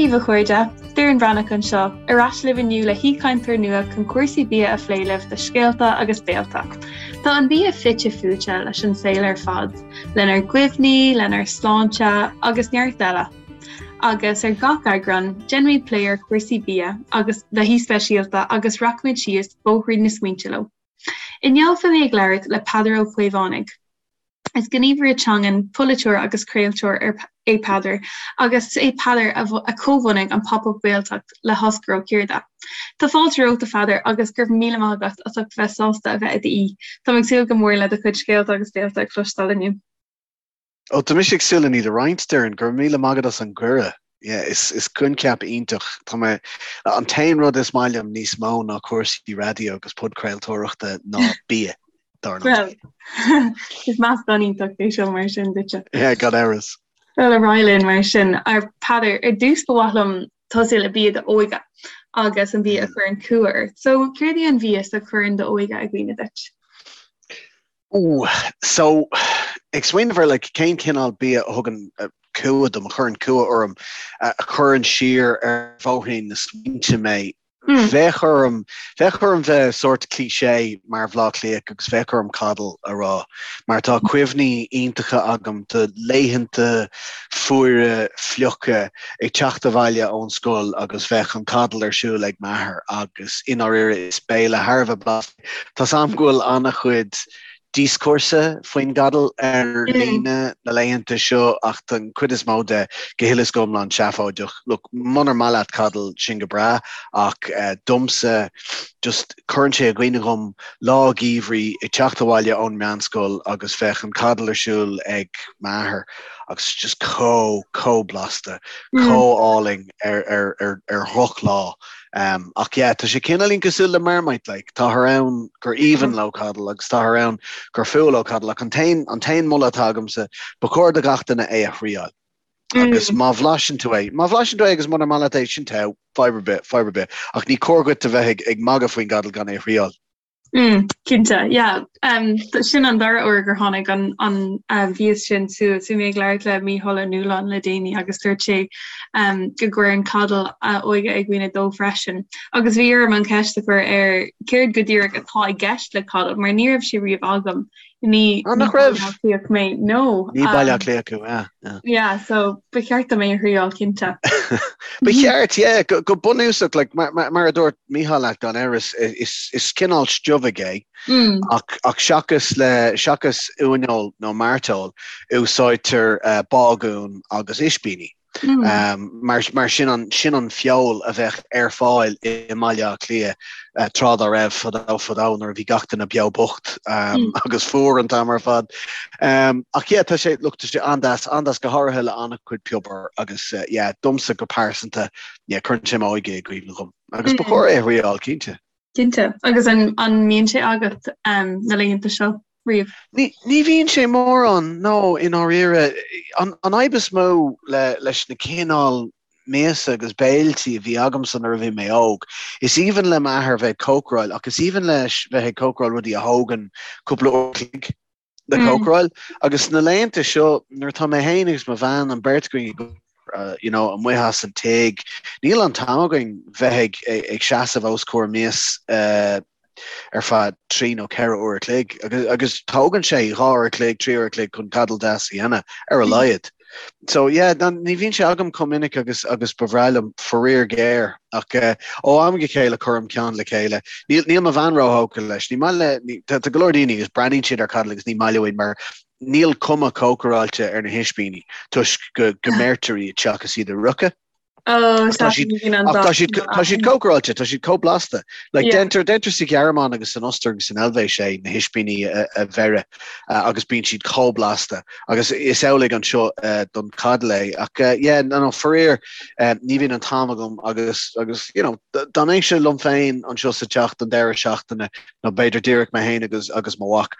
daoibh a chairde, Doireann Bhreathnach anseo, ar ais libh inniu le haoichainteoir nua chun cúrsaí bia a phlé libh do Scéalta agus Béalta. Tá an bia fite fuaite leis an saol ar fad, lenár gcuimhní, lenár sláinte agus neart eile. Agus ar gach eagrán, déanfaimid plé ar chúrsaí bia agus le haoi speisialta agus rachaimid síos bóithrín na smaointe leo. Inniu beidh mé ag labhairt le Peadar Ó Caomhánaigh. Is gníomhaire teangan, polaiteoir agus craoltóir é Peadar agus is é Peadar a chomhbhunaigh an Pop Up Gaeltacht le hOscar Ó Ciarda. Tá fáilte romhat a Pheadair agus go raibh míle maith agat as ucht bheith sásta a bheith i d'aoi. Táim ag súil go mór le do chuid scéalta agus béalta a chloisteáil inniu. Ó, tá mise ag súil le iad a roinnt, Doireann. Go raibh míle maith agat as an gcuireadh. Yeah, is, is coincheap iontach. Tá mé, an t-aon rud is maith liom níos mó ná cúrsaí raidió agus podchraoltóireachta ná bia, dar ndóigh. Well, is meascán iontach é seo mar sin duitse. Yeah, gan amhras. Well, ar aghaidh linn mar sin. A Pheadair, ar dtús ba mhaith liom tosú le bia d'óige agus an bia a chuireann cumha ort. So, céard é an mhias a chuireann d'óige i gcuimhne duit? Ooh, so, ag smaoineamh ar like cén cineál bia a thugann cumha dom, a chuireann cumha orm, a chuireann siar ar bhóithrín na smaointe mé, bheadh orm, bheadh orm bheith sórt cliché mar Bhleá Cliathach agus bheadh orm coddle a rá, mar tá cuimhní iontacha agam de laethanta fuara fliucha ag teacht abhaile ón scoil agus bheadh an coddle ar siúl ag m'athair agus i ndáiríre is béile thar a bheith blasta Tá's a'm go bhfuil an-chuid díoscúrsa faoin gcoddle ar líne na laethanta seo ach tá an chuid is mó de go huile is go hiomlán seafóideach. Look, munar maith leat coddle, sin go breá ach domsa just cuireann sé i gcuimhne dhom lá geimhridh ag teacht abhaile ón meánscoil agus bheadh an coddle ar siúl ag m'athair agus just chomh, chomh blasta, chomh álainn ar, ar, ar, ar dhrochlá. Ach yeah, tá sé cineáilín cosúil le Marmite, like, táthar ann gur aoibhinn leo coddle agus táthar ann gur fuath leo coddle, ach an t-aon, an t-aon moladh atá agamsa, ba chóir do gach duine é a thriáil. Agus má bhlaiseann tú é, má bhlaiseann tú é agus munar maith leat é, sin togha, fadhb ar bith, fadhb ar bith. Ach ní cóir dhuit a bheith ag, ag magadh faoin gcoddle gan é a thriáil. Mm, cinnte, yeah. Um, sin an dara uair gur tháinig an, an uh, mhias sin suas. Bhí mé ag labhairt le Mícheál Ó Nualláin le déanaí agus dúirt sé um, go gcuireann coddle a óige i gcuimhne dó freisin. Agus bhí orm an cheist a chur air céard go díreach atá i gceist le coddle, mar ní raibh sé riamh agam. Ní Ah, nach raibh? Baile Átha Cliath mé, no. Ní Baile Átha Cliath thú, yeah, yeah. Yeah, so ba cheart dom é a thriáil, cinnte. Ba cheart, yeah, go, go bunúsach, like, mar, mar, mar a dúirt Mícheál leat gan amhras, is, is cineál stuifigh é, mm. ach, ach seachas le, seachas uaineoil nó mairteoil, úsáidtear uh, bágún agus ispíní. Mar mar sin an sin an feoil a bheadh ar fáil i mBaile Átha Cliath tráth dá raibh, fadó fadó nuair a bhí gach duine beo bocht agus fuar an t-am ar fad. Ach yeah, tá sé, look, tá sé an-deas, an-deas go háirithe le an-chuid piobair agus yeah, domsa go pearsanta, yeah, cuireann sé m'óige i gcuimhne dhom. Agus ba chóir é a thriáil, cinnte. Cinnte. Agus an an mbíonn sé agat na laethanta seo riamh? Ní ní bhíonn sé mórán, no, i ndáiríre. An an fhadhb is mó le leis na cineál miasa agus béiltí a bhí agamsa nuair a bhí mé óg, is aoibhinn le m'athair bheith ag cócaráil ach is aoibhinn leis bheith ag cócaráil rudaí a thógann cúpla uair a chloig le cócaráil. Agus sna laethanta seo, nuair atá mé féin agus mo bhean, an bheirt againn ag obair, you know, amuigh as an tigh, níl an t-am againn bheith ag, ag seasamh os comhair mias ar feadh 3 nó 4 uair a chloig. Agus, agus tógann sé 2 uair a chloig, 3 uair a chloig chun coddle deas a dhéanamh, ar a laghad. So yeah, ní bhíonn sé agam chomh minic agus agus ba bhreá liom, faraor géar. Ach ó am go chéile cuirim ceann le chéile. Níl níl mo bhean róthógtha leis. Ní maith le ní, tá go leor daoine agus breathnaíonn siad ar coddle agus ní maith leo iad mar níl cuma cócaráilte ar na hispíní toisc go go mbeirtear iad seachas iad a fhriochadh. Oh, Ach tá siad ach tá siad tá siad cócaráilte, tá siad chomh blasta. Like yeah. Déantar déantar sa Ghearmáin agus san Ostair agus san Eilvéis é na hispíní a, a bheireadh uh, agus bíonn siad chomh blasta agus is amhlaidh anseo uh, don coddle é ach uh, yeah, no, no, faraor uh, ní bhíonn an t-am agam agus agus you know, dá mbeinnse liom féin anseo sa teach don deireadh seachtaine nó b'fhéidir díreach mé féin agus agus mo mhac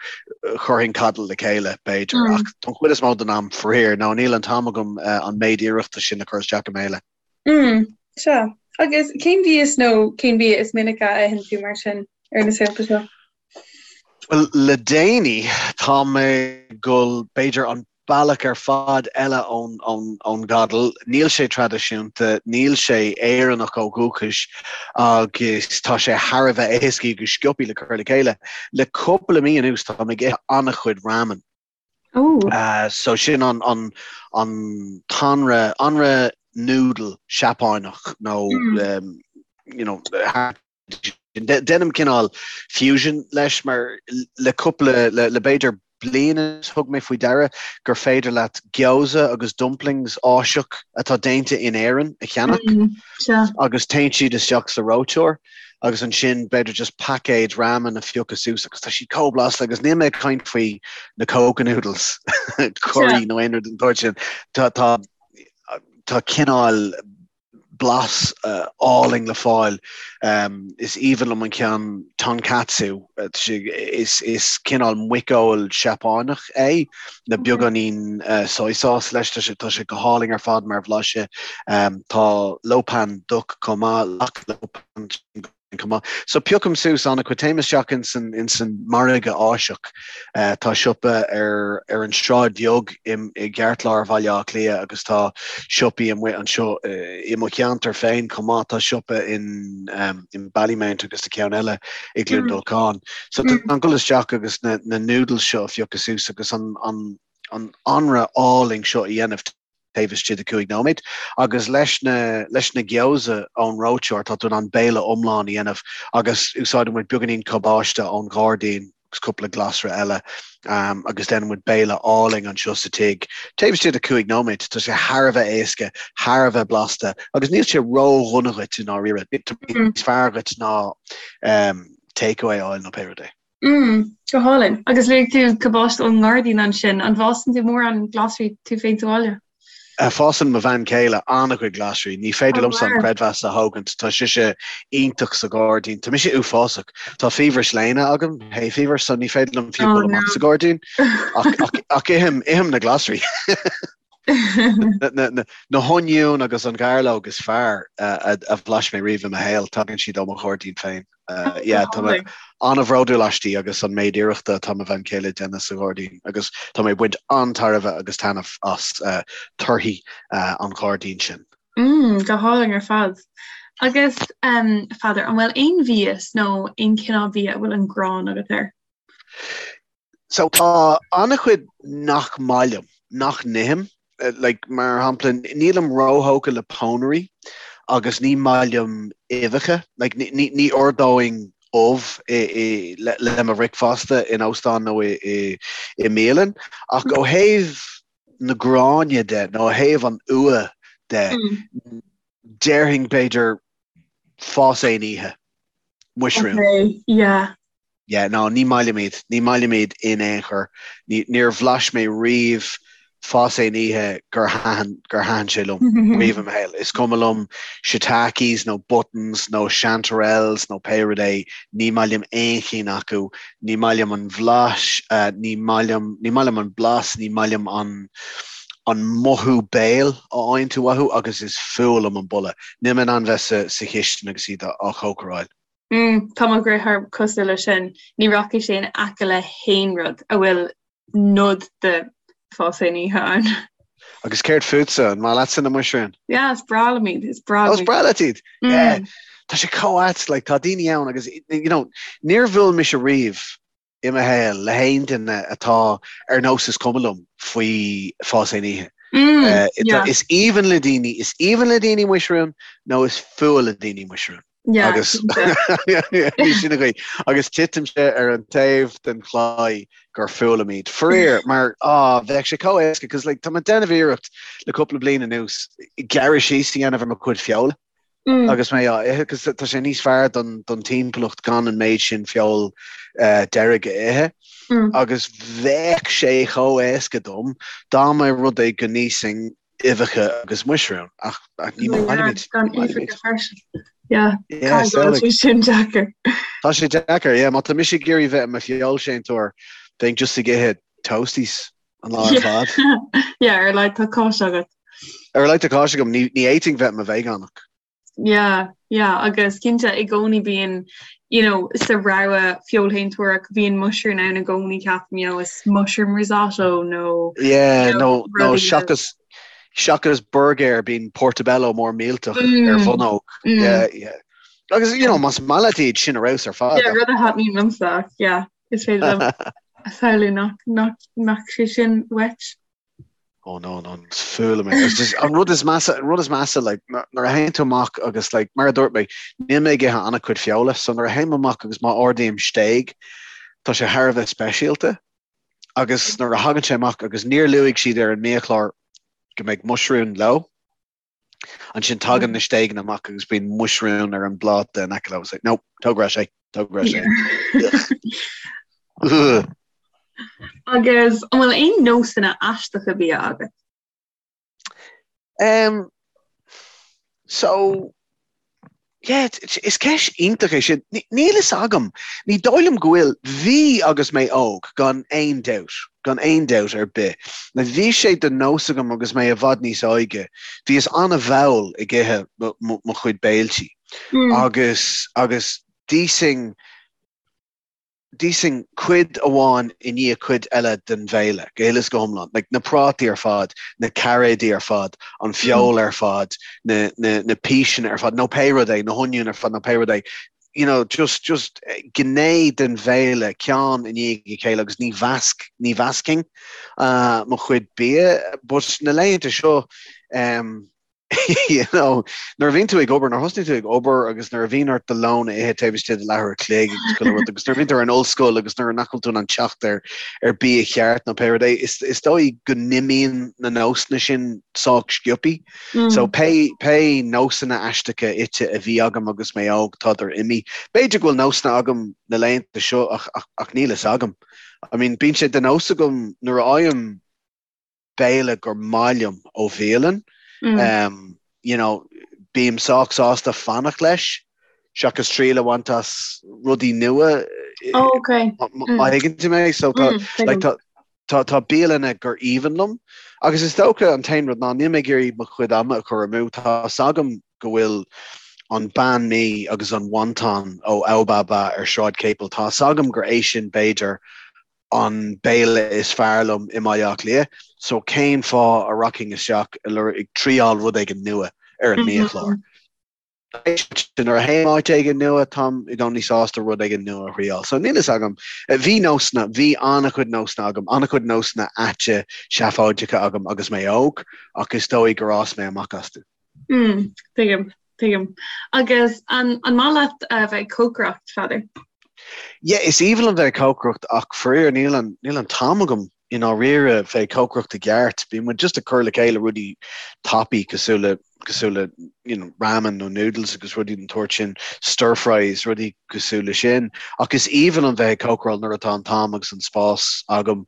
chuirfinn coddle le chéile b'fhéidir mm. ach don chuid is mó den am faraor nó níl an t-am agam uh, an méid iarrachta sin a chur isteach i mbéile. Mm, sea. Agus cén mhias nó cén bia is minice a itheann tú mar sin ar na saolta seo? Well le déanaí tá mé ag dul b'fhéidir an. bealach ar fad eile ón gcodal. Níl sé traidisiúnta, níl sé Éireannach ó dhúchas agus tá sé thar a bheith éasca agus sciobtha le cur le chéile. Le cúpla mí anuas táim ag ithe an-chuid ramen. So sin an an t-anraith, anraith noodle Seapáineach nó you know, Déanaim cineál fusion leis mar le cúpla, le b'fhéidir bliain anuas thug mé faoi deara gur féidir leat gyoza agus dumplings Áiseach atá déanta in Éirinn a cheannach agus téann siad isteach sa reoiteoir agus ansin b'fhéidir just paicéad ramen a phiocadh suas agus tá siad chomh blasta agus níl mé ag caint faoi na coca noodles curry nó aon rud den tsórt sin. Tá tá cineál blas álainn le fáil. Is aoibhinn liom an ceann tonkatsu. Is cineál muiceoil Seapáineach é, le beagáinín soy sauce leis. Tá sé tá sé go hálainn ar fad mar bhlaiseadh. Tá Lo Pan Duck chomh maith, lok Lo Pan. chomh maith. So piocaim suas an-chuid, téim isteach ins an, ins an margadh Áiseach. Tá siopa ar, ar an Sráid Bheag i, i gceartlár Bhaile Átha Cliath agus tá siopaí amuigh anseo i mo cheantar féin chomh maith. Tá siopa in, in Ballymount agus tá ceann eile i gCluain Dolcáin. So tá an dul isteach agus na, na noodles seo a phiocadh suas agus an, an, an anraith álainn seo a dhéanamh. taobh istigh de 5 nóiméad, agus leis na leis na gyoza ón reoiteoir tá tú in ann béile iomlán a dhéanamh agus úsáideann muid beagáinín cabáiste ón ghairdín agus cúpla glasra eile agus déanann muid béile álainn anseo sa tigh taobh istigh de 5 nóiméad. Tá sé thar a bheith éasca, thar a bheith blasta agus níl sé ró-dhona dhuit i ndáiríre. Níos fearr dhuit ná takeaway a fháil nó pé rud é. Mm, go hálainn. Agus luaigh tú cabáiste ón ngairdín ansin. An bhfásann tú mórán glasraí tú féin sa bhaile? Fásann mo bhean chéile an-chuid glasraí. Ní féidir liomsa an creidmheas a thógaint. Tá sise iontach sa ghairdín. Tá mise uafásach. Tá fiabhras léana agam, hay fever, so ní féidir liom fiú dul amach sa ghairdín. Ach, ach ithim, ithim na glasraí. Na hoinniúin agus an ghairleog is fearr a bhlais mé riamh i mo shaol, tagann siad ó mo ghairdín féin. Yeah, tá mé an-bhródúil aisti agus an méid iarrachta atá mo bhean chéile ag déanamh sa ghairdín agus tá mé ag baint an-tairbhe agus taitneamh as torthaí an ghairdín sin. Mm, go hálainn ar fad. Agus, a Pheadair, an bhfuil aon mhias nó aon chineál bia a bhfuil an ghráin agat air? So tá an-chuid nach maith liom, nach n-ithim. Like, mar shampla, nílim róthógtha le pónairí agus ní maith liom uibheacha. Like, ní, ní, ní ordóinn ubh i, i, le, le mo bhricfeasta in óstán nó i, i, i mbialann. Ach ó thaobh na gráine de, nó ó thaobh an fhuath de, déarfainn b'fhéidir fás aon oíche. Muisriúin. Okay, yeah. Yeah, no, ní maith liom iad. Ní maith liom iad in aon chor. Ní, níor bhlais mé riamh fás aon oíche gur thaitin, gur thaitin sé liom riamh i mo shaol. Is cuma liom shiitakes nó buttons nó chanterelles nó pé rud é, ní maith liom aon chinn acu. Ní maith liom an bhlais, ní maith liom, ní maith liom an blas, ní maith liom an, an mothú béil a fhaigheann tú uathu agus is fuath liom an boladh. Níl mé in ann bheith sa, sa chistin agus iad á chócaráil. Mm, tá mo dheartháir cosúil leis sin. Ní rachaidh sé in aice le haon rud a bhfuil nod de fás aon oíche ann. Agus céard fútsa? An maith leatsa na muisriúin? Yeah, is breá liom iad, is breá liom. Oh, is breá leat iad? Mm. Yeah. Tá sé chomh ait, like, tá daoine ann agus, you know, níor bhuail mise riamh i mo shaol le haon duine atá ar nós is cuma liom faoi fás aon oíche. Mm, yeah. Is aoibhinn le daoine, is aoibhinn le daoine muisriúin nó is fuath le daoine muisriúin. Yeah, agus sin an chaoi. Agus titimse ar an taobh den chlaí gur fuath liom iad. Faraor, mar á bheadh sé chomh éasca, cos like, tá mé ag déanamh iarracht le cúpla bliain anuas gearradh síos a dhéanamh ar mo chuid feola. Mm. Agus mé á ithe, cos tá sé níos fearr don, don timpeallacht gan an méid sin feoil uh, deirg a ithe. Mm. Agus bheadh sé chomh éasca dom dá mba rud é go n-íosfainn uibheacha agus muisriúin, ach ní maith liom iad. Gan uibheacha freisin. Yeah, yeah tá sé sin deacair. Tá sé deacair, yeah, má tá mise ag iarraidh bheith i mo fheoilséantóir, bheinn just ag ithe toasties an lá ar fad. Yeah, ar a laghad tá cáis agat. Ar a laghad tá cáis agam, ní fhéadfainn bheith i mo veigeánach. Yeah, yeah, agus cinnte i gcónaí bíonn, you know, sa rogha feoilshéantóireach bíonn muisriún ann i gcónaí ceapaim, you know, is mushroom risotto nó Yeah, nó nó seachas seachas burgéir bíonn portobello mór millteach mm. ar bhonnóg. Mm. Yeah, yeah. Agus you know, más maith leat iad sin ar fheabhas ar fad. Yeah, rud a thaitníonn liomsa, yeah, is féidir liom a shamhlú nach nach nach sé sin uait. Oh no, no, is fuath liom é. It's just, an rud is measa, an rud is measa, like, nuair a théann tú amach agus, like, mar a dúirt mé, níl mé ag ithe an-chuid feola, so nuair a théim amach agus má ordaím stéig, tá sé thar a bheith speisialta. Agus nuair a thagann sé amach agus níor luaigh siad ar an mbiachlár go mbeidh muisriún leo, Ansin tagann na stéigeanna amach agus bíonn muisriún ar an bpláta in aice leo. It's like, no, tóg ar ais é, tóg ar ais é. Agus an bhfuil aon nósanna aisteacha bia agat? Um, so, Yeah, is ceist iontach é sin. Níl fhios agam. Ní dóigh liom go bhfuil. Bhí agus mé óg, gan aon dabht. Gan aon dabht ar bith. Bhí sé de nós agam agus mé i bhfad níos óige, bhíos an-mhall ag ithe mo chuid béiltí. Agus, agus d'íosfainn, D'íosfainn cuid amháin i ndiaidh cuid eile den bhéile, go huile is go hiomlán. Like, na prátaí ar fad, na cairéidí ar fad, an feoil ar fad, na, na, na píseanna ar fad, nó pé rud é, na hoinniúin ar fad, nó pé rud é. You know, just, just gné den bhéile, ceann i ndiaidh a chéile agus ní mheasc, ní mheascfainn mo chuid bia. But na laethanta seo, em, you know, nuair a bhíonn tú ag obair, nuair a thosnaíonn tú ag obair agus nuair a bhíonn ort do lón a ithe taobh istigh de leathuair a chloig agus chuile rud agus nuair a bhíonn tú ar an ollscoil agus nuair nach bhfuil tú in ann teacht ar ar bia cheart nó pé rud é, is, is dóigh go n-imíonn na nósanna sin sách sciobthaí. Mm. So pé, pé nósanna aisteacha ite a bhí agam agus mé óg tádar imithe. B'fhéidir go bhfuil nósanna agam na laethanta seo ach, ach, ach níl fhios agam. I mean, bíonn sé de nós agam nuair a fhaighim béile gur maith liom ó bhialann, you know, bím sách sásta fanacht leis seachas triail a bhaint as rudaí nua. Oh, okay. Má thuigeann tú mé, so tá, like, tá, tá, tá bialanna gur aoibhinn liom agus is dócha an t-aon rud ná níl mé ag iarraidh mo chuid ama a chur amú, tá 's agam go bhfuil an banh mi agus an wonton ó Ao Ba Ba ar Sráid Capel, tá 's agam gur é sin b'fhéidir an béile is fearr liom i mBaile Átha Cliath, so cén fáth a rachainn isteach ag triáil rud éigin nua ar an mbiachlár? Nuair a théim áit éigin nua, táim i gcónaí sásta rud éigin nua a thriáil. So níl fhios agam. Bhí nósanna, bhí an-chuid nósanna agam, an-chuid nósanna aite seafóideacha agam agus mé óg, ach is dóigh gur fhás mé amach astu. Mm, tuigim, tuigim. Agus an, an maith leat a bheith ag cócaireacht, Pheadair? Yeah, is aoibhinn liom bheith ag cócaireacht ach faraor níl an, níl an t-am agam i ndáiríre bheith ag cócaireacht i gceart. Bíonn muid just ag cur le chéile rudaí tapaí cosúil le, cosúil le, you know, ramen nó noodles agus rudaí den tsórt sin, stir fries, rudaí cosúil le sin. Ach is aoibhinn liom bheith ag cócaráil nuair atá an t-am agus an spás agam.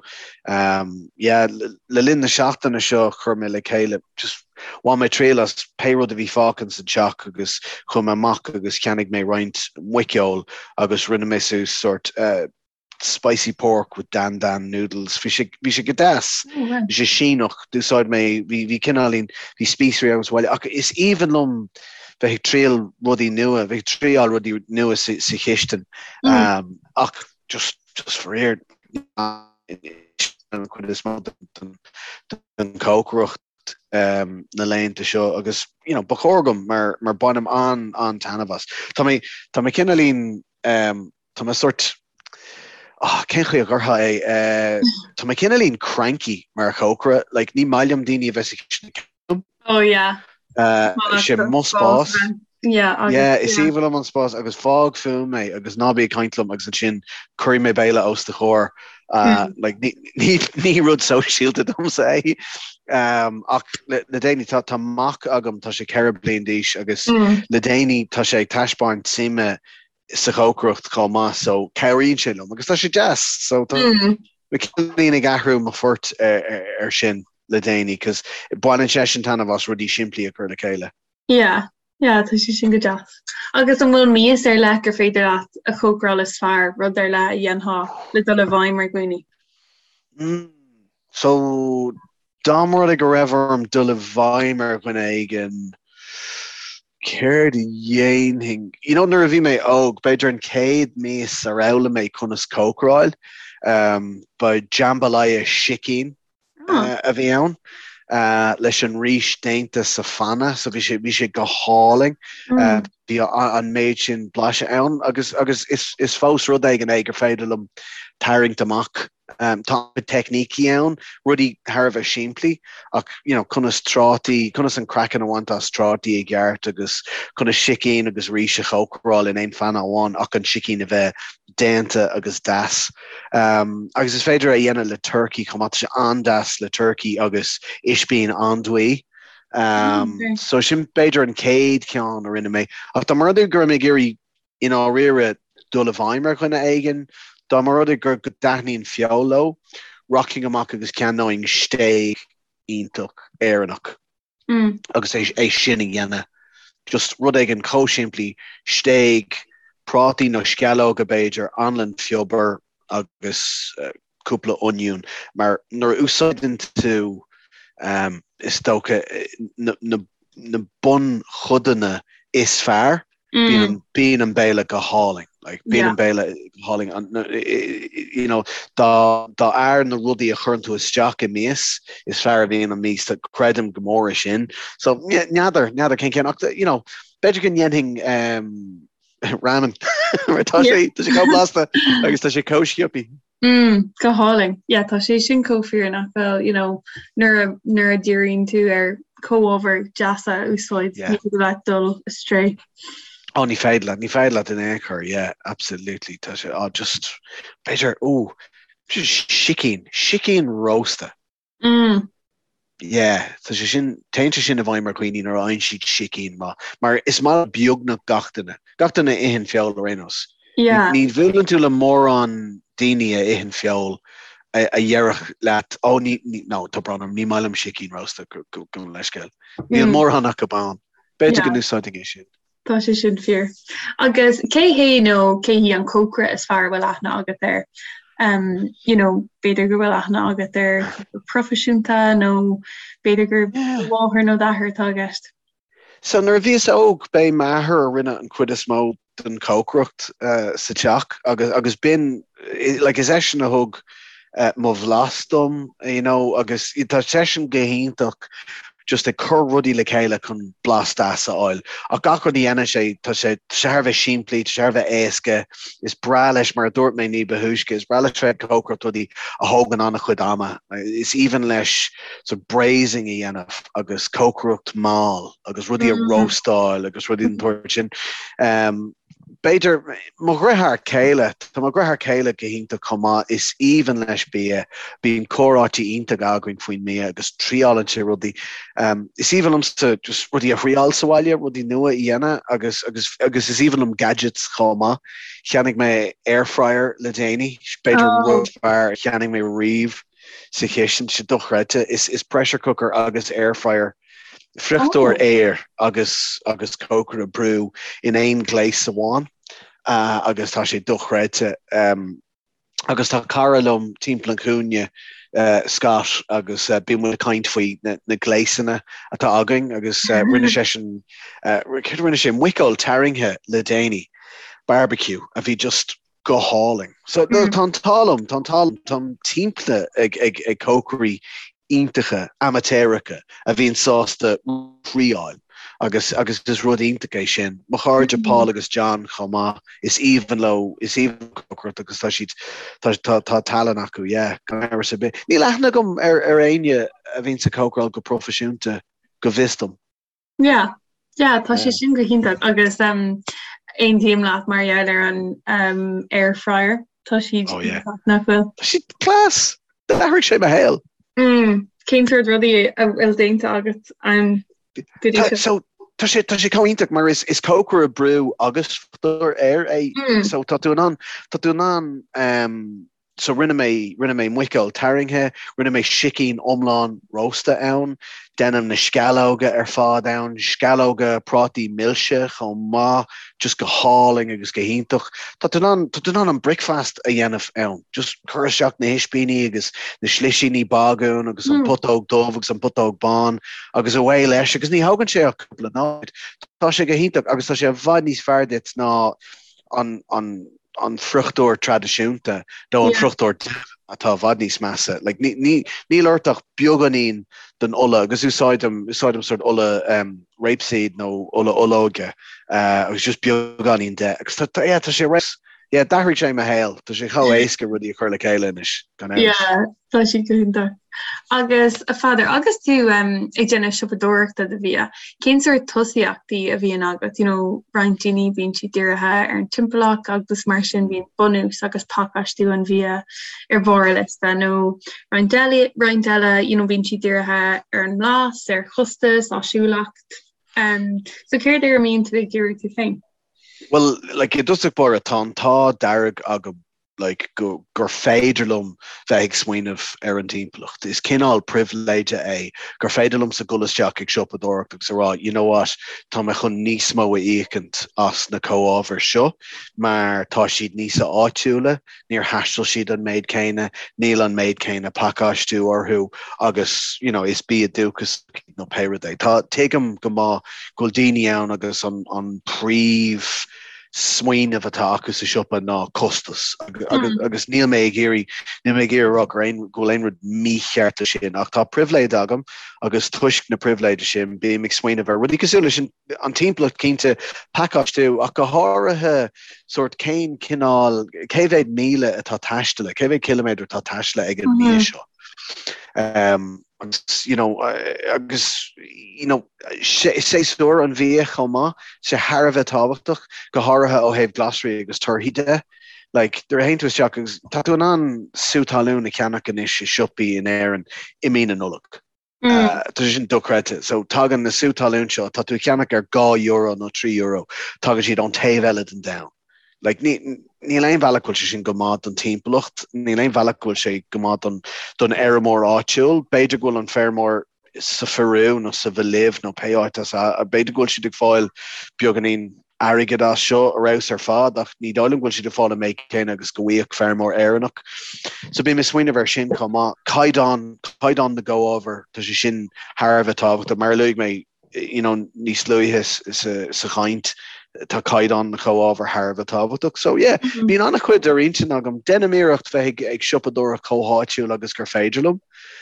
Um, yeah, le, le linn na seachtaine seo chuir mé le chéile just Bhain mé triail as pé rud a bhí fágtha san teach agus chuaigh mé amach agus cheannaigh mé roinnt muiceoil agus rinne mé suas sórt spicy pork with dan dan noodles. Bhí sé, bhí sé go deas. Bhí sé Síneach. D'úsáid mé, bhí, bhí cineáilín, bhí spíosraí agam sa bhaile ach is aoibhinn liom bheith ag triail rudaí nua, bheith ag triáil rudaí nua sa, sa chistin. Um, ach just, just faraor, an chuid is mó den, den chócaireacht. na laethanta seo agus you know, ba chóir dom mar, mar bainim an, an-taitneamh as. Tá mé, tá mé cineáilín, um, tá mé sort, oh, cén chaoi a gcuirfeá é, uh, tá mé cineáilín cranky mar chócaire, like, ní maith liom daoine a bheith sa chistin liom. Oh yeah. Uh, sé mo spás. Yeah, agus, yeah, is aoibhinn liom an spás agus fág fúm é agus ná bí ag caint liom agus ansin cuirfidh mé béile os do chomhair. Uh, mm. like, ní, ní, ní rud sóisialta domsa é. Um, ach le, le déanaí tá, tá mac agam tá sé 4 bliain d'aois agus mm. le déanaí tá sé ag taispeáint suime sa chócaireacht chomh maith so cabhraíonn sé liom agus tá sé deas so tá mm. mé cineáilín ag athrú mo phort ar, ar, ar sin le déanaí cos baineann seisean taitneamh as rudaí simplí a chur le chéile. Yeah, yeah, tá sé sin go deas. Agus an bhfuil mias ar leith gur féidir leat a chócaráil is fearr, rud ar leith a dhéanfá le dul i bhfeidhm ar dhaoine? Mm, so dá mba rud é go raibh orm dul i bhfeidhm ar dhuine éigin. Céard a dhéanfainn? You know, nuair a bhí mé óg, b'fhéidir an chéad mias ar fhoghlaim mé conas cócaráil, ba jambalaya sicín a bhí ann, leis an rís déanta sa phanna, so bhí sé, bhí sé go hálainn. Bhí an méid sin blaiseadh ann agus, agus is, is fós rud éigin é gur féidir liom tarraingt amach. Tá teicnící ann, rudaí thar a bheith simplí, ach you know, conas trátaí, conas an craiceann a bhaint as trátaí i gceart agus conas sicín agus rís a chócaráil in aon phanna amháin ach an sicín a bheith déanta agus deas. Agus is féidir é a dhéanamh le turcaí chomh maith, tá sé an-deas le turcaí agus ispín andúile. So sin b'fhéidir an chéad cheann a rinne mé. Ach dá mba rud é go raibh mé ag iarraidh i ndáiríre dul i bhfeidhm ar dhuine éigin, dá mba rud é go dtaitníonn feoil leo, rachainn amach agus ceannóinn stéig iontach Éireannach agus é sin a dhéanamh. Just rud éigin chomh simplí, stéig, prátaí nó sceallóga b'fhéidir, anlann phiobair agus cúpla oinniún, mar nuair a úsáideann tú, is dócha, na bunchodanna is fearr, bíonn an béile go hálainn. Like, bíonn an béile go hálainn. You know, dá fhearr na rudaí a chuireann tú isteach i mias, is fearr a bhíonn an mias. Creidim go mór i sin. So, n'fheadar, n'fheadar cén ceann, ach, you know, b'fhéidir go ndéanfainn ramen. Mar tá sé, tá sé chomh blasta agus tá sé chomh sciobtha. Mm, go hálainn. Yeah, tá sé sin chomh fíor nach bhfuil, you know, nuair a, nuair a dhíríonn tú ar comhábhair deasa a úsáid, ní féidir leat dul astray. Oh, ní féidir leat, ní féidir leat in aon chor, yeah, absolutely. Tá sé, oh, just, b'fhéidir, ooh, sicín, sicín rósta. Mm. Yeah, tá sé sin, téann sé sin i bhfeidhm ar dhaoine nuair a fhaigheann siad sicín maith, mar is maith le beagnach gach duine, gach duine a itheann feoil ar aon nós. Yeah. Ní bhuaileann tú le mórán daoine a itheann feoil a déarfadh leat, oh ní, ní, no, tá brón orm, ní maith liom sicín rósta, gabh mo leithscéal. Níl mm. mórán acu ann. B'fhéidir go n-úsáidfinn é sin. Tá sé sin fíor. Agus cé hé nó cé hí an cócaire is fearr a bhfuil aithne agat air? Um, you know, b'fhéidir go bhfuil aithne agat air proifisiúnta nó b'fhéidir gur do mháthair nó d'athair atá i gceist. So nuair a bhíos óg, b'é m'athair a rinne an chuid is mó den chócaireacht uh, sa teach agus, agus b'in, like, is eisean a thug uh, mo bhlas dom, you know, agus tá seisean go hiontach just ag cur rudaí le chéile chun blas deas a fháil. Ach gach rud a dhéanann sé, tá sé thar a bheith simplí, tá sé thar a bheith éasca, is breá leis, mar a dúirt mé ní ba thúisce, is breá leis bheith ag cócaireacht rudaí a thógann an-chuid ama. Is aoibhinn leis so braising a dhéanamh agus cócaireacht mall agus rudaí a róstáil agus rudaí den tsórt sin. Um, B'fhéidir, mo dheartháir céile, tá mo dheartháir céile go hiontach chomh maith, is aoibhinn leis bia, bíonn comhráití iontacha againn faoin mbia agus triálann sé rudaí. Is aoibhinn liomsa just rudaí a thriáil sa bhaile, rudaí nua a dhéanamh agus agus agus is aoibhinn liom gadgets chomh maith. Cheannaigh mé air fryer le déanaí, b'fhéidir an rud is fearr a cheannaigh mé riamh sa chistin, tá sé dochreidte. Is is pressure cooker agus air fryer friochtóir aeir agus agus cócaire brú in aon ghléas amháin agus tá sé dochreidte. Agus tá cara liom timpeall an chúinne, Scott, agus bíonn muid ag caint faoi na gléasanna atá againn agus rinne seisean, céard a rinne sé, muiceoil tarraingthe le déanaí, barbecue, a bhí just go hálainn. So tá an t-ádh liom, tá an t-ádh liom, táim timpeallaithe ag, ag, ag cócairí iontacha, amaitéaracha a bhíonn sásta triáil agus, agus is rud iontach é sin. Mo chairde Paul agus John chomh maith, is aoibhinn leo, is aoibhinn leo cócaireacht agus tá siad, tá, tá, tá tallann acu, yeah, gan amhras ar bith. Níl aithne agam ar, ar éinne a bhíonns ag cócaráil go proifisiúnta, go bhfios dom. Yeah, yeah, tá sé sin go hiontach agus um, aontaím leat mar gheall ar an um, air fryer. Tá siad oh, yeah. nach bhfuil. Tá siad class! D'athraigh sé mo shaol. Mm, cén sórt rudaí a bhfuil déanta agat ann go dtí seo? So, tá sé tá sé chomh iontach mar is is cócaire brú agus friochtóir aeir é. Mm. So tá tú in ann tá tú in ann um, So rinne mé, rinne mé muiceoil tarraingthe, rinne mé sicín iomlán rósta ann, déanaim na sceallóga ar fad ann, sceallóga prátaí milse chomh maith, just go hálainn agus go hiontach. Tá tú in ann, tá tú in ann an bricfeast a dhéanamh ann, just cuir isteach na hispíní agus na slisíní bagúin agus an putóg dubh agus an putóg bán agus away leis agus ní thógann sé ach cúpla nóiméad. Tá sé go hiontach agus tá sé i bhfad níos fearr duit ná an, an, an friochtóir traidisiúnta nó an friochtóir dubh atá i bhfad níos measa. Like, ní, ní, níl ort ach beagáinín den ola agus úsáidim, úsáidim sort ola um, rapeseed nó ola olóige uh, agus just beagáinín de. Agus tá, tá, yeah, tá sé res, yeah, d'athraigh sé mo shaol. Tá sé chomh éasca rudaí a chur le chéile anois, gan amhras. Yeah, tá sé go hiontach. Agus a Pheadair, agus tú ag déanamh siopadóireachta do bhia, cén sórt tosaíochtaí a bhíonn agat? You know, roinnt daoine bíonn siad dírithe ar an timpeallacht agus mar sin bíonn bunús agus pacáistiú an bhia ar bharr a liosta, nó roinnt eile, roinnt eile, you know, bíonn siad dírithe ar an mblas, ar chostas, áisiúlacht. Um, so céard ar a mbíonn tú ag díriú tú féin? Well, like, i dtosach báire, tá an t-ádh dearg agam like, go, gur féidir liom bheith ag smaoineamh ar an timpeallacht. Is cineál pribhléide é gur féidir liomsa dul isteach ag siopadóireacht agus a rá, you know what, tá mé chun níos mó a íocaint as na comhábhair seo mar tá siad níos áitiúla, níor thaistil siad an méid céanna, níl an méid céanna pacáistiú orthu agus, you know, is bia dúchasach nó pé rud é. Tá, tuigim go maith go bhfuil daoine ann agus an, an príomh smaoineamh atá acu sa siopa ná costas agus níl mé ag iarraidh, níl mé ag iarraidh a rá gur aon, go bhfuil aon rud mícheart leis sin ach tá pribhléid agam agus toisc na pribhléide sin bím ag smaoineamh ar rudaí cosúil leis an, an timpeallacht cinnte, pacáistiú ach go háirithe sórt cén cineál, cé mhéad míle atá taistealaithe, cé mhéad ciliméadar atá taistealaithe ag an mbia seo. Um, agus you know, agus you know, séasúr an bhia chomh maith, sé thar a bheith tábhachtach, go háirithe ó thaobh glasraí agus torthaí de. Like, nuair a théann tú isteach agus tá tú in ann sú talún a cheannach anois i siopaí in Éirinn i mí na Nollag. Mm. Tá sé sin dochreidte. So tagann na sú talún seo, tá tú a cheannach ar €2 nó €3, tagann siad ón taobh eile den domhan. Like, ní, níl aon bhealach go bhfuil sé sin go maith don timpeallacht, níl aon bhealach go bhfuil sé go maith don, don fheirmeoir áitiúil. B'fhéidir go bhfuil an feirmeoir sa Pheiriú nó sa Bholaiv nó pé áit as a, b'fhéidir go bhfuil siad ag fáil beagáinín airgid as seo ar fheabhas ar fad ach ní dóigh liom go bhfuil siad ag fáil an méid céanna agus go bhfaigheadh feirmeoir Éireannach. So bím ag smaoineamh ar sin chomh maith. Caighdeán, caighdeán na gcomhábhar, tá sé sin thar a bheith tábhachtach. Mar a luaigh mé you know, níos luaithe sa, sa chaint, tá caighdeán na gcomhábhar thar a bheith tábhachtach. So yeah, mm -hmm. bíonn an-chuid ar intinn agam. Déanaim iarracht bheith ag, ag siopadóireacht chomh háitiúil agus gur féidir liom.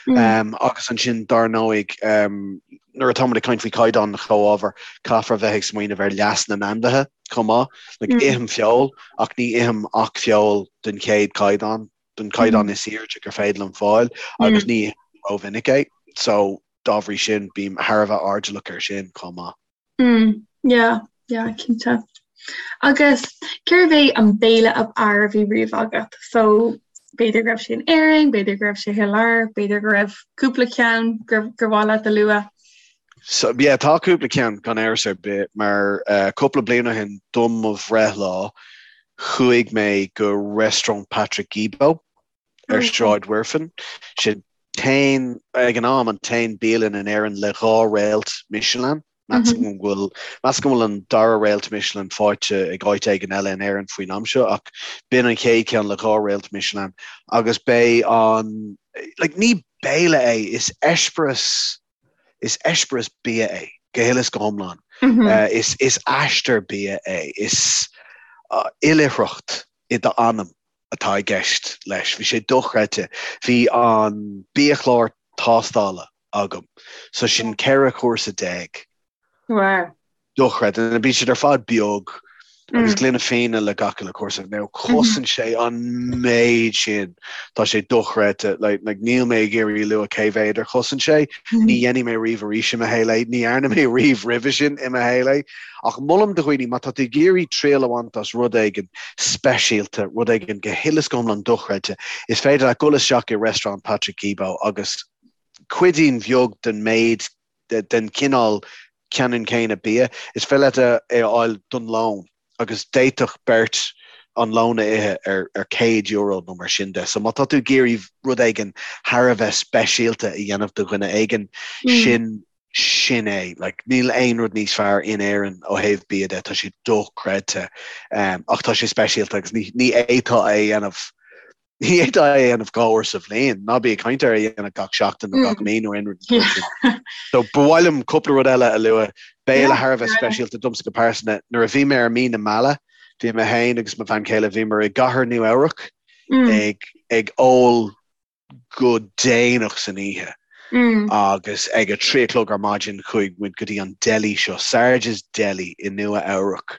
Mm. Um, agus ansin dar ndóigh um, nuair atáimid ag caint faoi chaighdeán na gcomhábhar, caithfear a bheith ag smaoineamh ar leas na n-ainmhithe chomh maith. Like, mm. Ithim feoil ach ní ithim ach feoil den chéad chaighdeán, den chaighdeán mm. is airde gur féidir liom fáil agus mm. ní ithim rómhinic é. So dá bhrí sin bím thar a bheith airdeallach air sin chomh maith. Mm, yeah, yeah, cinnte. Agus cérbh é an béile ab fhearr a bhí riamh agat? So b'fhéidir go raibh sé in Éirinn, b'fhéidir go raibh sé thar lear, b'fhéidir go raibh cúpla ceann gur gur mhaith leat a lua. So yeah, tá cúpla ceann gan amhras ar bith mar uh, cúpla bliain ó shin do mo bhreithlá chuaigh mé go Restaurant Patrick Guilbaud ar Sráid Mhuirfean. Sin t-aon, ag an am, an t-aon bialann in Éirinn le dhá réalt Michelin. Measaim go bhfuil, measaim go bhfuil an dara réalt Michelin faighte ag áit éigin eile in Éirinn faoin am seo, ach b'in an chéad cheann le dhá réalt Michelin. Agus b'é an, like, ní béile é, is eispéireas, is eispéireas bia é, go huile is go hiomlán. Is, is aistear bia é, is oilithreacht i d'anam atá i gceist leis. Bhí sé dochreidte. Bhí an biachlár tástála agam. So sin 14 chúrsa. Wow. Dochreidte. Bíonn siad ar fad beag agus gloine fíona le gach uile chúrsa. Now chosain sé an méid sin. Tá sé dochreidte. Like, like, níl mé ag iarraidh lua cé mhéad ar chosain sé. Ní dhéanfaidh mé riamh arís i mo shaol é. Ní dhearna mé riamh roimhe sin i mo shaol é. Ach molaim do dhaoine, má tá tú ag iarraidh triail a bhaint as rud éigin speisialta, rud éigin go huile is go hiomlán dochreidte, is féidir leat dul isteach i Restaurant Patrick Guilbaud agus cuidín bheag den méid, den chineál ceannann céanna bia, is féidir leat é a fháil don lón agus d'fhéadfadh beirt an lón a ithe ar ar €100 nó mar sin de. So má tá tú ag iarraidh rud éigin thar a bheith speisialta a dhéanamh do dhuine éigin, sin sin é. Like, níl aon rud níos fearr in Éirinn ó thaobh bia de, tá sé dochreidte. Um, ach tá sé speisialta agus ní, ní fhéadfá é a dhéanamh ní fhéadfá é a dhéanamh dhá uair sa bhliain, ná bí ag caint ar é a dhéanamh gach seachtain nó gach mí nó aon rud mar sin. So ba mhaith liom cúpla rud eile a lua, béile thar a bheith speisialta domsa go pearsanta. Nuair a bhí mé ar mí na meala, bhí mé féin agus mo bhean chéile, bhíomar i gcathair Nua Eabhrac ag ag ól go déanach san oíche agus ag a trí a chlog ar maidin chuaigh muid go dtí an deli seo, Sarge's Deli i Nua Eabhrac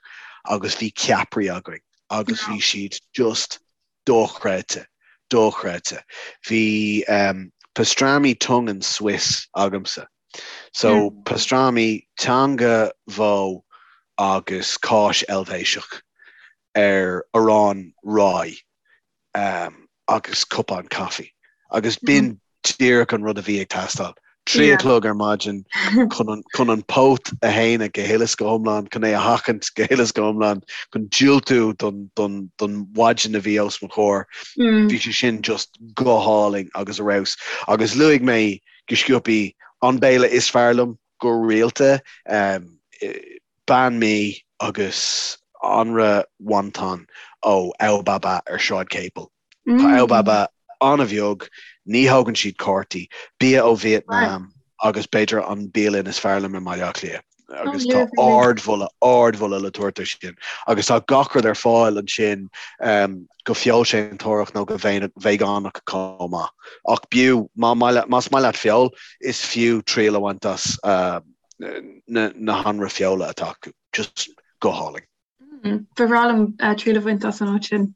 agus bhí ceapairí againn agus bhí siad just dochreidte, dochreidte. Bhí pastrami tongue and Swiss agamsa. So pastrami, teanga bhó agus cáis Eilvéiseach ar arán rye. agus cupán caife. Agus b'in díreach an rud a bhí ag teastáil. 3 a chlog ar maidin chun an póit a shéanadh go huile is go hiomlán, chun é a sheachaint go huile is go hiomlán, chun diúltú don mhaidin a bhí os mo chomhair. Bhí sé sin just go hálainn agus ar fheabhas. Agus luaigh mé go sciobthaí an béile is fearr liom go rialta, Banh mi agus anraith wonton ó Ao Ba Ba ar Sráid Capel. Tá Ao Ba Ba an-bheag, ní thógann siad cártaí, bia ó Vietnam agus b'fhéidir an bialann is fearr liom i mBaile Átha Cliath. Agus tá ardmholadh, ardmholadh le tabhairt air sin. Agus tá gach rud ar fáil ansin go feoilséantóireach nó go veigeánach chomh maith. Ach b'fhiú, más maith leat feoil, is fiú triail a bhaint as na hanraith feola atá acu. Just go hálainn. Ba bhreá liom triail a bhaint as an áit sin.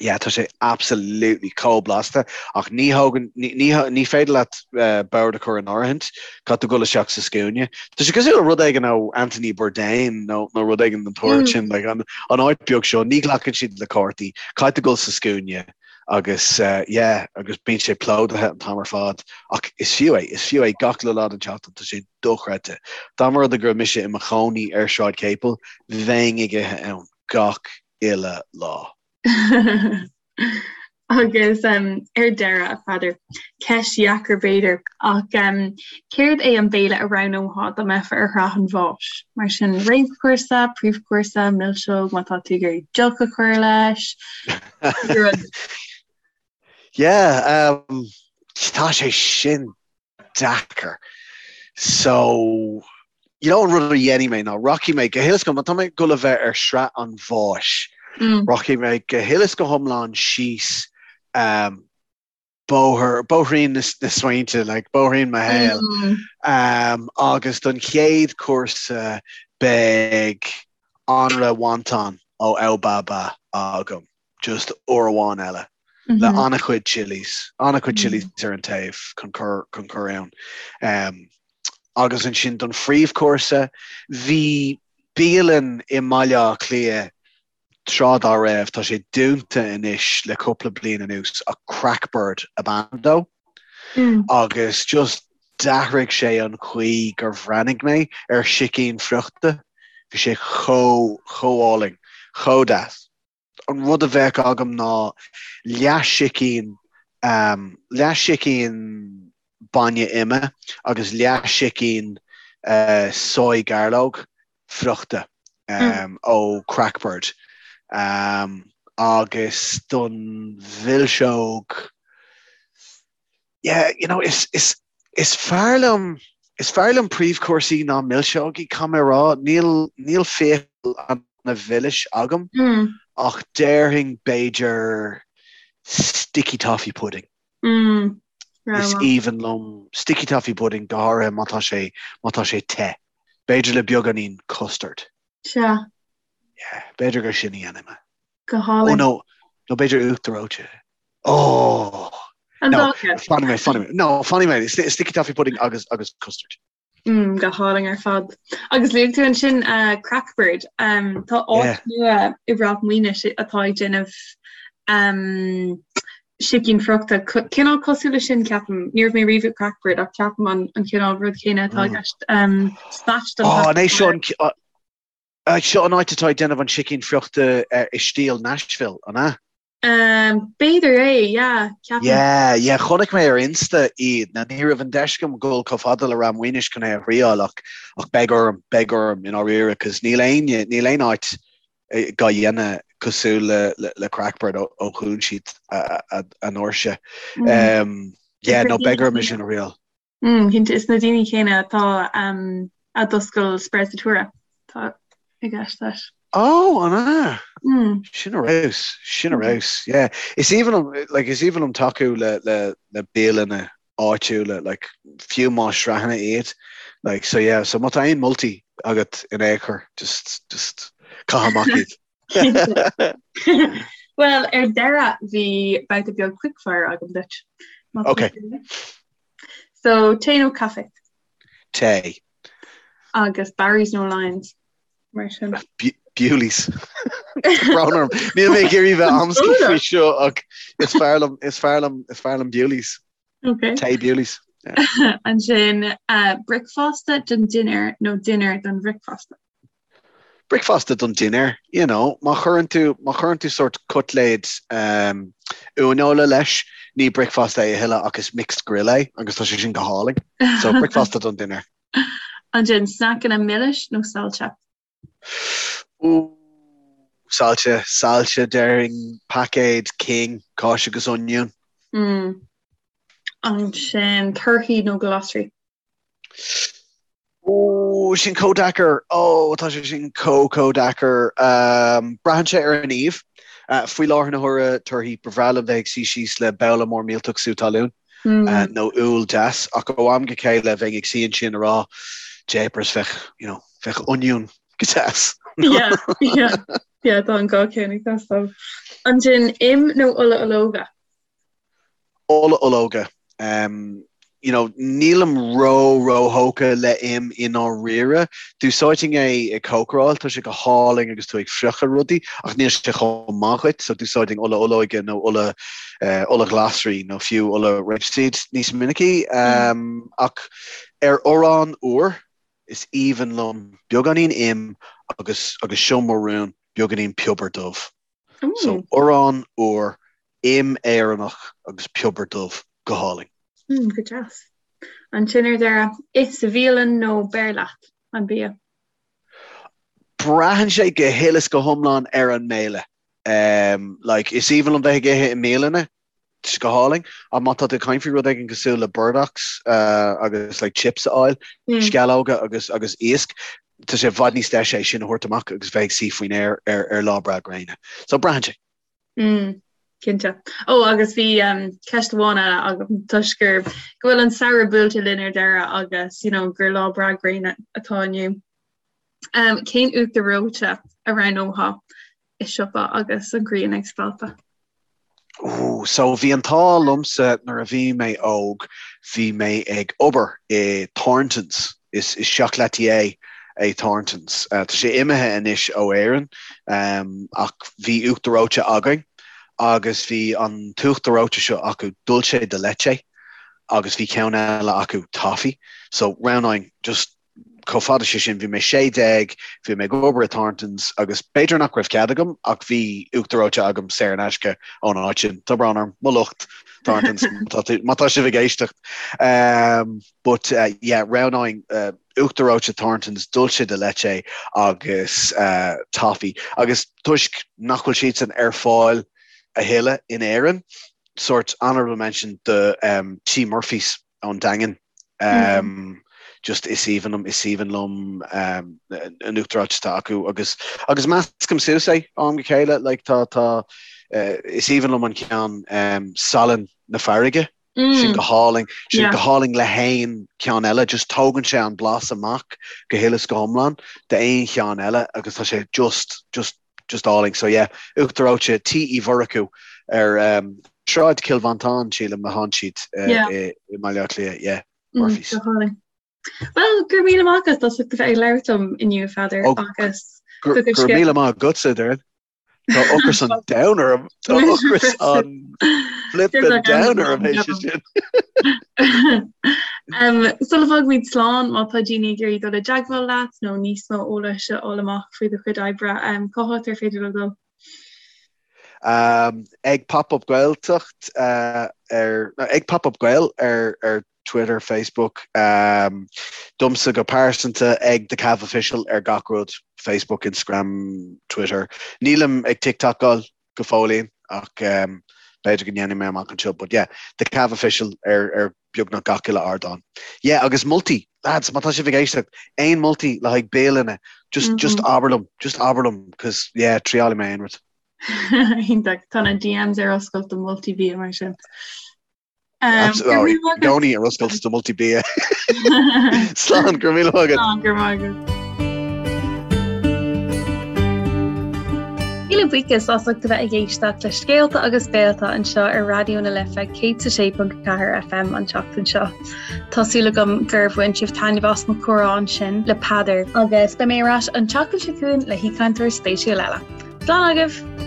Yeah, tá sé absolutely chomh blasta ach ní thógann, ní, ní féidir leat bord a chur in áirithint, caithfidh tú dul isteach sa scuaine. Tá sé cosúil le rud éigin ó Anthony Bourdain nó, nó rud éigin den tsórt sin, like, an, an áit beag seo, ní ghlacann siad le cártaí, caithfidh tú dul sa scuaine agus yeah, agus bíonn sé plódaithe an t-am ar fad ach is fiú é, is fiú é gach uile lá den tseachtain, tá sé dochreidte. Dá mba rud é go raibh mise i mo chónaí ar Shráid Capel, bheinn ag ithe ann gach uile lá. Agus ar deireadh, a Pheadair, ceist dheacair b'fhéidir, ach céard é an béile a roghnófá dá mbeifeá ar shraith an bháis? Mar sin, réamhchúrsa, príomhchúrsa, milseog, má tá tú ag iarraidh deoch a chur leis, rud. Yeah, um, tá sé sin deacair. So, you know an rud a dhéanfaidh mé ná rachaidh mé go huile is go, má tá mé ag dul a bheith ar shraith an bháis, mm. rachaidh mé go huile is go hiomlán síos um, bóthar, bóithrín na, na smaointe, like, bóithrín mo shaoil. Mm. Um, agus don chéad chúrsa beidh anraith wonton ó Ao Ba Ba agam. just uair amháin eile le an-chuid chillies, an-chuid chillies ar an taobh chun cur chun cur ann. Um, agus ansin don phríomhchúrsa, bhí bialann i mBaile Átha Cliath tráth dá raibh, tá sé dúnta anois le cúpla bliain anuas, ach Crackbird ab ainm dó. Agus just d'athraigh sé an chaoi gur bhreathnaigh mé ar sicín friochta. Bhí sé chomh, chomh álainn, chomh deas. An rud a bheadh agam ná leath-sicín, leath-sicín bainne ime agus leath-sicín soy gairleog friochta ó Crackbird. Agus don mhilseog, yeah, you know, is, is, is fearr liom, is fearr liom príomhchúrsaí ná milseogaí, caithfidh mé a rá. Níl, níl fiacail ana-mhilis agam, mm. ach déarfainn b'fhéidir sticky toffee pudding. Mm. Is aoibhinn liom sticky toffee pudding go háirithe má tá sé, má tá sé te. B'fhéidir le beagáinín custard. Sea. Yeah, b'fhéidir gur sin a dhéanfaidh mé. Go hálainn. Oh no, nó b'fhéidir uachtar reoite. Oh! An No, dá cheann. fanfaidh mé, fanfaidh mé. No, fanfaidh mé. Sti- Sticky toffee pudding agus, agus custard. Mm, go hálainn ar fad. Agus luaigh tú ansin uh, Crackbird. Um, tá áit Yeah. nua i Ráth Maoinis atá ag déanamh um, sicín friochta. Co- Cineál cosúil le sin ceapaim. Ní raibh mé riamh ag Crackbird ach ceapaim an, an cineál rud céanna atá i Mm. gceist. Um, Spatch don Oh, an é seo an, Seo an áit atá ag déanamh an sicín friochta i stíl Nashville, an ea? B'fhéidir é, yeah, ceapaim. Yeah, yeah, chonaic mé ar Insta iad. Now ní raibh an deis agam dul chomh fada le Ráth Maoinis chun é a thriáil ach ach beidh orm, beidh orm i ndáiríre cos níl éinne, níl aon áit dhá dhéanamh cosúil le le le Crackbird ó ó dhún siad a a ndoirse. Yeah, no beidh orm é sin a thriáil. Cinnte, is na daoine céanna atá a d'oscail Sprezzatura atá i gceist leis. Ó, an ea? Sin ar fheabhas, sin ar fheabhas, yeah. Is aoibhinn liom, like, is aoibhinn liom tacú le, le, le bialanna áitiúla, like, fiú más sraitheanna iad, like, so yeah, so má tá aon moltaí agat in aon chor, just, just caith amach iad. Bhuel, ar deireadh, bhí babhta beag quickfire agam duit. Ok. So, tae nó caife? Tae. Agus Barry's nó Lyons, mar sin. Bewley's. Brón orm. Níl mé ag iarraidh bheith amscaí faoi seo ach is fearr liom, is fearr liom, is fearr liom Bewley's. Ok. Tae Bewley's. Ansin, bricfeasta don dinnéar nó dinnéar don bhricfeasta? Bricfeasta don dinnéar, you know, má chuireann tú, má chuireann tú sórt cutléid um, uaineola leis, ní bricfeasta é a thuilleadh ach is mixed grill é agus tá sé sin go hálainn. So bricfeasta don dinnéar. Ansin sneaiceanna milis nó saillte? Ooh, saillte, saillte déarfainn paicéad King, cáis agus oinniún. Mm. Ansin torthaí nó glasraí? Ó, sin chomh deacair. Ó, tá sé sin chomh, chomh deacair. Braitheann sé ar an aoibh. Faoi láthair na huaire, torthaí, ba bhreá liom bheith ag suí síos le babhla mór millteach sú talún nó úll deas, ach ó am go chéile bheinn ag suí ansin ag rá, jeepers, bheadh, you know, bheadh oinniún go deas. Yeah, yeah, yeah, tá an dhá ceann ag teastáil. Ansin, im nó ola ológa? Ola ológa. You know, nílim ró ró-thógtha le im i ndáiríre. D'úsáidfinn é ag cócaráil, tá sé go hálainn agus tú ag friochadh rudaí, ach níl sé chomh maith dhuit, so d'úsáidfinn ola olóige nó ola ola ghlasraí nó fiú ola rapeseed níos minicí. Ach ar arán úr, is aoibhinn liom beagáinín im agus agus seo mo rún, beagáinín piobar dubh. So arán úr, im Éireannach agus piobar dubh, go hálainn. Mm, go deas. Ansin ar deireadh, ith sa bhialann nó beir leat an bia? Braitheann sé go huile is go hiomlán ar an mbéile. Um, like, is aoibhinn liom bheith ag ithe i mbialanna, Tá sé go hálainn. Ach má tá tú ag caint faoi rud éigin cosúil le burdocks agus like chips a fháil, sceallóga agus agus iasc, tá sé i bhfad níos deise é sin a thabhairt amach agus bheith ag suí faoin aer ar ar lá breá gréine. So braitheann sé. Mm, cinnte. Ó agus bhí um, ceist amháin eile agam toisc gur go bhfuil an samhradh buailte linn ar deireadh agus you know, gur lá breá gréine atá inniu. Um, cén uachtar reoite a roghnófá i siopa agus an ghrian ag spalpadh? Ooh, so bhí an t-ádh liomsa nuair a bhí mé óg, bhí mé ag obair i Thorntons, is is chocolatier é Thorntons. Uh, tá sé imithe anois ó Éirinn, um, ach bhí uachtar reoite againn agus bhí an t-uachtar reoite seo acu dulce de leche agus bhí ceann eile acu toffee. So roghnóinn just chomh fada sé sin, bhí mé 16, bhí mé ag obair i Thorntons agus b'fhéidir nach raibh cead agam ach bhí uachtar reoite agam saor in aisce ón áit sin. Tá brón orm, mo lucht Thorntons, má tá sibh ag éisteacht. Um, but uh, yeah, roghnóinn uh, uachtar reoite Thorntons, dulce de leche agus uh, toffee. Agus toisc nach bhfuil siadsan ar fáil a thuilleadh in Éirinn, sort honorable mention do um, T Murphy's ón Daingean. Just is aoibhinn liom, is aoibhinn liom an uachtar reoite atá acu agus agus meascaim suas é ó am go chéile, like tá tá is aoibhinn liom an ceann salann na farraige, sin go hálainn, sin go hálainn le haon cheann eile, just tógann sé an blas amach go huile is go hiomlán d'aon cheann eile agus tá sé just just just álainn. So yeah, uachtar reoite Tí Uí Mhurchú ar um, Sráid Chill Mhantáin, sílim, atánn siad uh, yeah. i, i mBaile Átha Cliath, yeah, mm, Murphy's. Mm, Well, go raibh míle maith agat as ucht a bheith ag labhairt liom inniu Pheadair oh, agus go raibh míle maith agatsa Doireann. Tá ocras an domhain orm Tá ocras an flippin domhain orm é sin. Sula bhfágaimid slán, má tá daoine ag iarraidh dul i dteagmháil leat nó níos mó eolais a fháil amach faoi do chuid oibre, cá háit ar féidir leo dul? Ag Pop Up Gaeltacht ar, ag Pop Up Gael ar ar Twitter, Facebook. Domsa go pearsanta ag The Cav Official ar gach rud, Facebook, Instagram, Twitter. Nílim ag TikTokáil go fóillín ach b'fhéidir go ndéanfaidh mé amach anseo but yeah, The Cav Official ar ar beagnach gach uile ardán. Yeah agus moltaí, lads, má tá sibh ag éisteacht, aon moltaí le haghaidh bialanna, just just abair liom, just abair liom cos yeah, triálfaidh mé aon rud. Iontach, tá na DMs ar oscailt do moltaí bia mar sin. I gcónaí ar oscailt do moltaí bia. Slán, go raibh míle maith agat. Slán, go raibh maith agat. Míle buíochas as ucht a bheith ag éisteacht le Scéalta agus Béalta anseo ar Raidió na Life 106.4 FM an tseachtain seo. Tá súil agam gur bhain sibh taitneamh as mo chomhrá ansin le Peadar agus beidh mé ar ais an tseachtain seo chugainn le haoichainteoir spéisiúil eile. Slán agaibh!